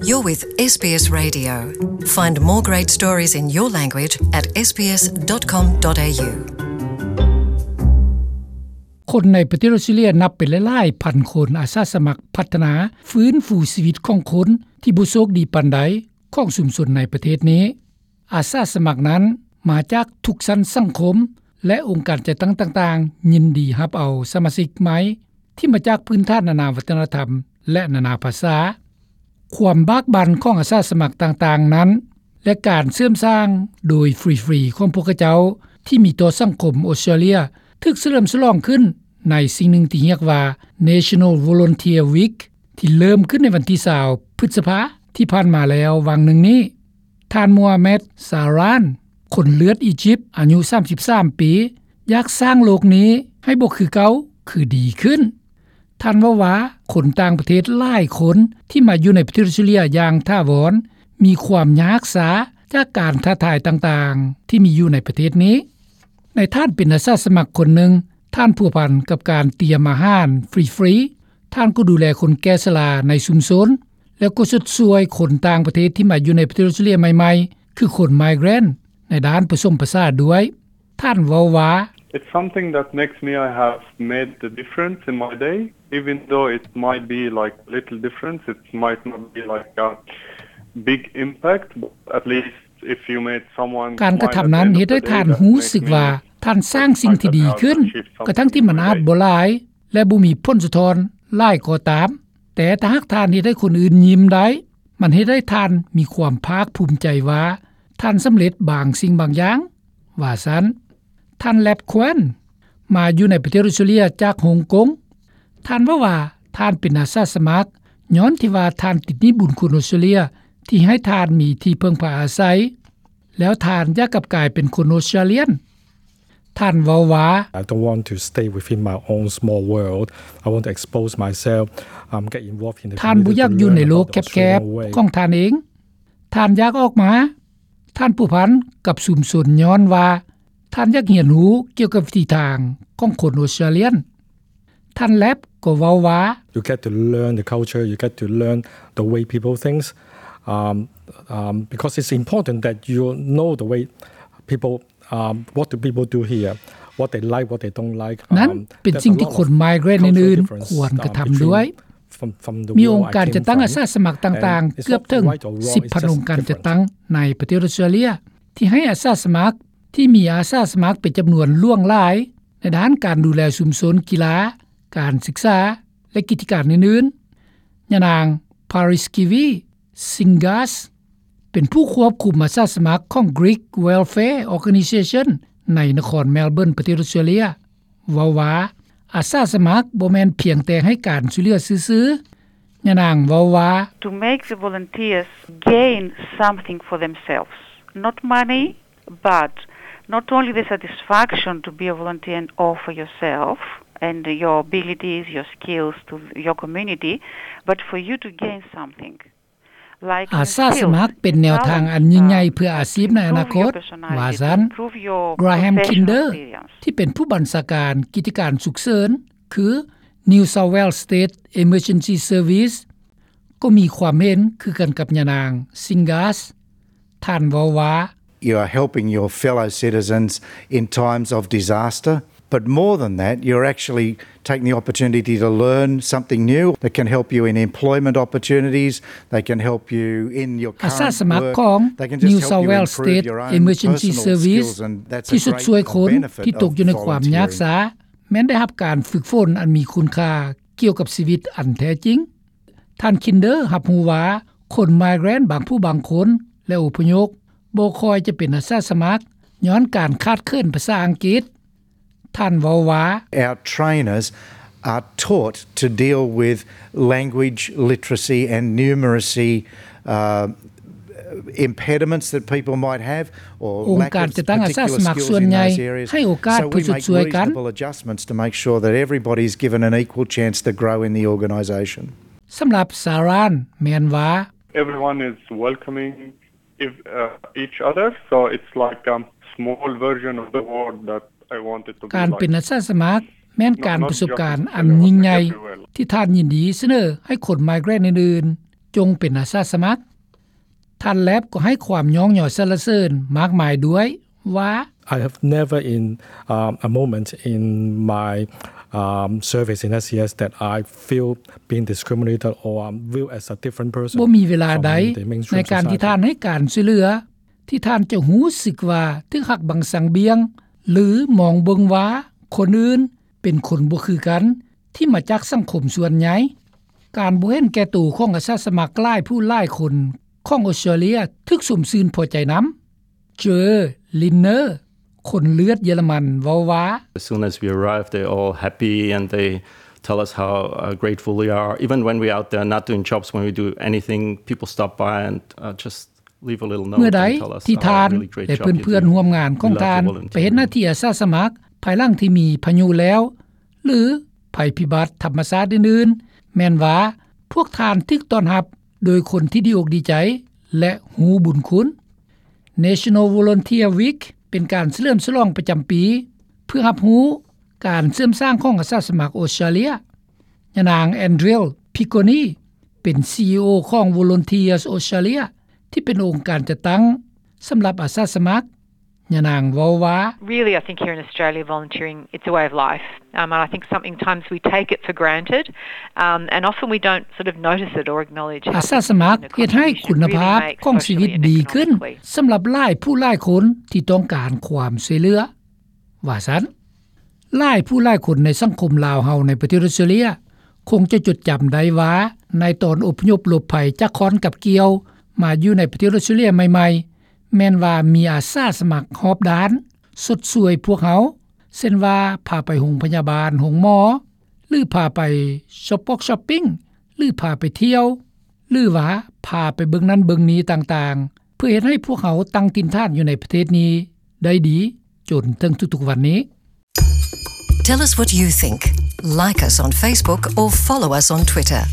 You're with SBS Radio. Find more great stories in your language at sbs.com.au. ຄົນໃນປະເທດອອສເຕຣເລັຽນັບເປັນຫຼາຍໆພັນຄົນ ອາສາສະໝັກພັດທະນາຟື້ນຟູຊີວິດຂອງຄົນທີ່ບໍ່ໂຊກດີປານໃດຂອງຊຸມຊົນໃນປະເທດນີ້. ອາສາສະໝັກນັ້ນມາຈາກທຸກຊັ້ນສັງຄົມ ແລະ ອົງການຈັດຕັ້ງຕ່າງໆ ຍິນດີຮັບເອົາສະມາຊິກໃໝ່ທີ່ມາຈາກພື້ນຖານນານາວັດທະນະທຳ ແລະ ນານາພາສາ. ຄວາມບາກບັ່ນຂອງອາສາສະໝັກຕ່າງໆນັ້ນ ແລະ ການເສີມສ້າງໂດຍຟຣີໆຂອງພວກເຂົາເຈົ້າທີ່ມີຕໍ່ສັງຄົມອອສເຕຣເລັຽ ຖືກສະເຫຼີມສະຫຼອງຂຶ້ນໃນສິ່ງໜຶ່ງທີ່ຮຽກວ່າ National Volunteer Week ທີ່ເລີ່ມຂຶ້ນໃນວັນທີຊາວ ພຶດສະພາທີ່ຜ່ານມາແລ້ວຫວ່າງໜຶ່ງນີ້. ທ່ານ Mohamed Saran ຄົນເລືອດອີຢິບ ອາຍຸສາມສິບສາມປີ ຢາກສ້າງໂລກນີ້ໃຫ້ບໍ່ຄືເກົ່າ ຄືດີຂຶ້ນ. ທ່ານເວົ້າວ່າ ຄົນຕ່າງປະເທດຫຼາຍຄົນທີ່ມາຢູ່ໃນປະເທດອອສເຕຣເລັຽຢ່າງຖາວອນ ມີຄວາມຍາກຊາຈາກການທ້າທາຍຕ່າງໆທີ່ມີຢູ່ໃນປະເທດນີ້. ໃນທ່ານເປັນອາສາສະໝັກຄົນໜຶ່ງ, ທ່ານພົວພັນກັບການຕຽມອາຫານຟຣີໆ, ທ່ານກໍດູແລຄົນແກ່ຊະລາໃນຊຸມຊົນ ແລ້ວກໍຊົດຊ່ວຍຄົນຕ່າງປະເທດທີ່ມາຢູ່ໃນປະເທດອອສເຕຣເລັຽໃໝ່ໆ ຄືຄົນ migrant ໃນດ້ານປະສົມປະສານດ້ວຍ. ທ່ານເວົ້າວ່າ It's something that makes me, I have made the difference in my day, even though it might be like little difference, it might not be like a big impact, but at least if you made someone ການກະທຳນັ້ນເຮັດໃຫ້ທ່ານຮູ້ສຶກວ່າທ່ານສ້າງສິ່ງທີ່ດີຂຶ້ນ ກະທັ່ງທີ່ມັນອາດບໍ່ຫຼາຍ ແລະ ບໍ່ມີຜົນສະທ້ອນຫຼາຍກໍຕາມ, ແຕ່ຖ້າຫາກທ່ານເຮັດໃຫ້ຄົນອື່ນຍິ້ມໄດ້, ມັນເຮັດໃຫ້ທ່ານມີຄວາມພາກພູມໃຈວ່າທ່ານສຳເລັດບາງສິ່ງບາງຢ່າງ, ວ່າຊັ້ນ. ທ່ານ Lap Kwan ມາຢູ່ໃນປະເທດອອສເຕຣເລັຽຈາກຮົງກົງ. ທ່ານເວົ້າວ່າ ທ່ານເປັນອາສາສະໝັກ ຍ້ອນທີ່ວ່າທ່ານຕິດໜີ້ບຸນຄຸນອອສເຕຣເລັຽທີ່ໃຫ້ທ່ານມີທີ່ເພິ່ງພາອາໄສ, ແລ້ວທ່ານຢາກກັບກາຍເປັນຄົນອອສເຕຣເລັຽນ. ທ່ານເວົ້າວ່າ I don't want to stay within my own small world. I want to expose myself, um, get involved in the community, learn about the Australian way. ທ່ານບໍ່ຢາກຢູ່ໃນໂລກແຄບໆຂອງທ່ານເອງ. ທ່ານຢາກອອກມາ. ທ່ານພົວພັນກັບຊຸມຊົນຍ້ອນວ່າທ່ານຢາກຮຽນຮູ້ກ່ຽວກັບວິທີທາງຂອງຄົນອອສເຕຣເລັຽນ. ທ່ານ Lap ກໍເວົ້າວ່າ You get to learn the culture, you get to learn the way people thinks, um, um, because it's important that you know the way people, um, what do people do here, what they like, what they don't like. ນັ້ນເປັນສິ່ງທີ່ຄົນ migrant ອື່ນໆຄວນກະທຳດ້ວຍ. ມີອົງການຈັດຕັ້ງອາສາສະໝັກຕ່າງໆເກືອບເຖິງສິບພັນອົງການຈັດຕັ້ງໃນປະເທດອອສເຕຣເລັຽ ທີ່ໃຫ້ອາສາສະໝັກ ທີ່ມີອາສາສະໝັກເປັນຈຳນວນຫຼວງຫຼາຍໃນດ້ານການດູແລຊຸມຊົນ, ກິລາ, ການສຶກສາ ແລະ ກິດຈະການອື່ນໆ. ຍານາງ Pariskevy Singas ເປັນຜູ້ຄວບຄຸມອາສາສະໝັກຂອງ Greek Welfare Organisation ໃນນະຄອນ Melbourne ປະເທດອອສເຕຣເລັຽ ເວົ້າວ່າ ອາສາສະໝັກບໍ່ແມ່ນພຽງແຕ່ໃຫ້ການຊ່ວຍເຫຼືອຊື່ໆ. ຍານາງເວົ້າວ່າ To make the volunteers gain something for themselves, not money, but not only the satisfaction to be a volunteer and offer yourself and your abilities, your skills to your community, but for you to gain something. ອາສາສະໝັກເປັນແນວທາງອັນຍິ່ງໃຫຍ່ເພື່ອອາຊີບໃນອະນາຄົດ, ວ່າຊັ້ນ. Graham Kinder ທີ່ເປັນຜູ້ບັນຊາການກິດຈະການສຸກເສີນ ຄື New South Wales State Emergency Service ກໍມີຄວາມເຫັນຄືກັນກັບຍານາງ Singas. ທ່ານເວົ້າວ່າ You are helping your fellow citizens in times of disaster, but more than that, you're actually taking the opportunity to learn something new that can help you in employment opportunities, that can help you in your current work, that can just help you improve your own personal skills, and that's a great benefit of volunteering. ອາສາສະໝັກຂອງ New South Wales State Emergency Service ທີ່ຊົດຊ່ວຍຄົນທີ່ຕົກຢູ່ໃນຄວາມຍາກຊ້າ ແມ່ນໄດ້ຮັບການຝຶກຝົນອັນມີຄຸນຄ່າກ່ຽວກັບຊີວິດອັນແທ້ຈິງ. ທ່ານ Kinder ຮັບຮູ້ວ່າ ຄົນ migrant ບາງຜູ້ບາງຄົນ ແລະ ອົບພະຍົບ ບໍ່ຄ່ອຍຈະເປັນອາສາສະໝັກ ຍ້ອນການຂາດເຂີນພາສາອັງກິດ. ທ່ານເວົ້າວ່າ Our trainers are taught to deal with language literacy and numeracy, uh, impediments that people might have or lack of particular skills in those areas. ອົງການຈັດຕັ້ງອາສາສະໝັກສ່ວນໃຫຍ່ໃຫ້ໂອກາດເພື່ອຊົດຊ່ວຍກັນ. So we make reasonable adjustments to make sure that everybody's given an equal chance to grow in the organisation. ສຳລັບ Saran ແມ່ນວ່າ Everyone is welcoming ev- uh, each other, so it's like a small version of the world that I want it to be like. ການເປັນອາສາສະໝັກແມ່ນການປະສົບການອັນຍິ່ງໃຫຍ່ທີ່ທ່ານຍິນດີສະເໜີໃຫ້ຄົນ migrant ອື່ນ ຈົ່ງເປັນອາສາສະໝັກ. ທ່ານ Lapp ກໍໃຫ້ຄວາມຍ້ອງຍໍສັນລະເສີນມາກມາຍດ້ວຍວ່າ I have never in, um, a moment in my, um, service in S C S that I feel being discriminated or, um, viewed as a different person ບໍ່ມີເວລາໃດໃນການທີ່ທ່ານໃຫ້ການຊ່ວຍເຫຼືອ ທີ່ທ່ານຈະຮູ້ສຶກວ່າຖືກຫັກບັງສັງບ່ຽງ ຫຼື ມອງເບິ່ງວ່າຄົນອື່ນເປັນຄົນບໍ່ຄືກັນ ທີ່ມາຈາກສັງຄົມສ່ວນໃຫຍ່. ການບໍ່ເຫັນແກ່ໂຕຂອງອາສາສະໝັກຫຼາຍຜູ້ຫຼາຍຄົນຂອງອົດສະຕຣາເລຍ ຖືກຊົມຊື່ນພໍໃຈນຳ. Joe Linner ຄົນເລືອດເຢຍລະມັນເວົ້າວ່າ As soon as we arrived, they're all happy and they tell us how, uh, grateful we are. Even when we're out there not doing jobs, when we do anything, people stop by and, uh, just leave a little note and tell us how really great job you're doing. ເມື່ອໃດທີ່ທ່ານ ແລະ ເພື່ອນໆຮ່ວມງານຂອງທ່ານ ໄປເຮັດໜ້າທີ່ອາສາສະໝັກ ພາຍຫຼັງທີ່ມີພາຍຸແລ້ວ ຫຼື ໄພພິບັດທຳມະຊາດອື່ນໆ ແມ່ນວ່າພວກທ່ານຖືກຕ້ອນຮັບໂດຍຄົນທີ່ດີອົກດີໃຈ ແລະ ຮູ້ບຸນຄຸນ. National Volunteer Week ເປັນການສະເຫຼີມສະຫຼອງປະຈຳປີ ເພື່ອຮັບຮູ້ການເຊື່ອມສ້າງຂອງອາສາສະໝັກອົດສະຕຣາເລຍ. ຍານາງ Andrea Piccone ເປັນ CEO ຂອງ Volunteers Australia ທີ່ເປັນອົງການຈັດຕັ້ງສຳລັບອາສາສະໝັກ. ຍານາງເວົ້າວ່າ Really, I think here in Australia, volunteering, it's a way of life. Um, and I think sometimes we take it for granted, um, and often we don't sort of notice it or acknowledge it. ອາສາສະໝັກເຮັດໃຫ້ຄຸນນະພາບຂອງຊີວິດດີຂຶ້ນ ສຳລັບຫຼາຍຜູ້ຫຼາຍຄົນທີ່ຕ້ອງການຄວາມຊ່ວຍເຫຼືອ ວ່າຊັ້ນ. ຫຼາຍຜູ້ຫຼາຍຄົນໃນສັງຄົມລາວເຮົາໃນປະເທດອົດສະຕຣາເລຍ ຄົງຈະຈົດຈຳໄດ້ວ່າ ໃນຕອນອົບພະຍົບຫຼົບໄພຈາກຄ້ອນກັບກ່ຽວ ມາຢູ່ໃນປະເທດອົດສະຕຣາເລຍໃໝ່ໆ ແມ່ນວ່າມີອາສາສະໝັກຮອບດ້ານຊົດຊ່ວຍພວກເຮົາ ເຊັ່ນວ່າ ພາໄປໂຮງພະຍາບານ, ໂຮງໝໍ ຫຼື ພາໄປຊັອບປອກຊັອບປິງ ຫຼື ພາໄປທ່ຽວ ຫຼືວ່າ ພາໄປເບິ່ງນັ້ນເບິ່ງນີ້ຕ່າງໆ ເພື່ອເຮັດໃຫ້ພວກເຮົາຕັ້ງຖິ່ນຖານຢູ່ໃນປະເທດນີ້ໄດ້ດີ ຈົນເຖິງທຸກໆວັນນີ້. Tell us what you think. Like us on Facebook or follow us on Twitter.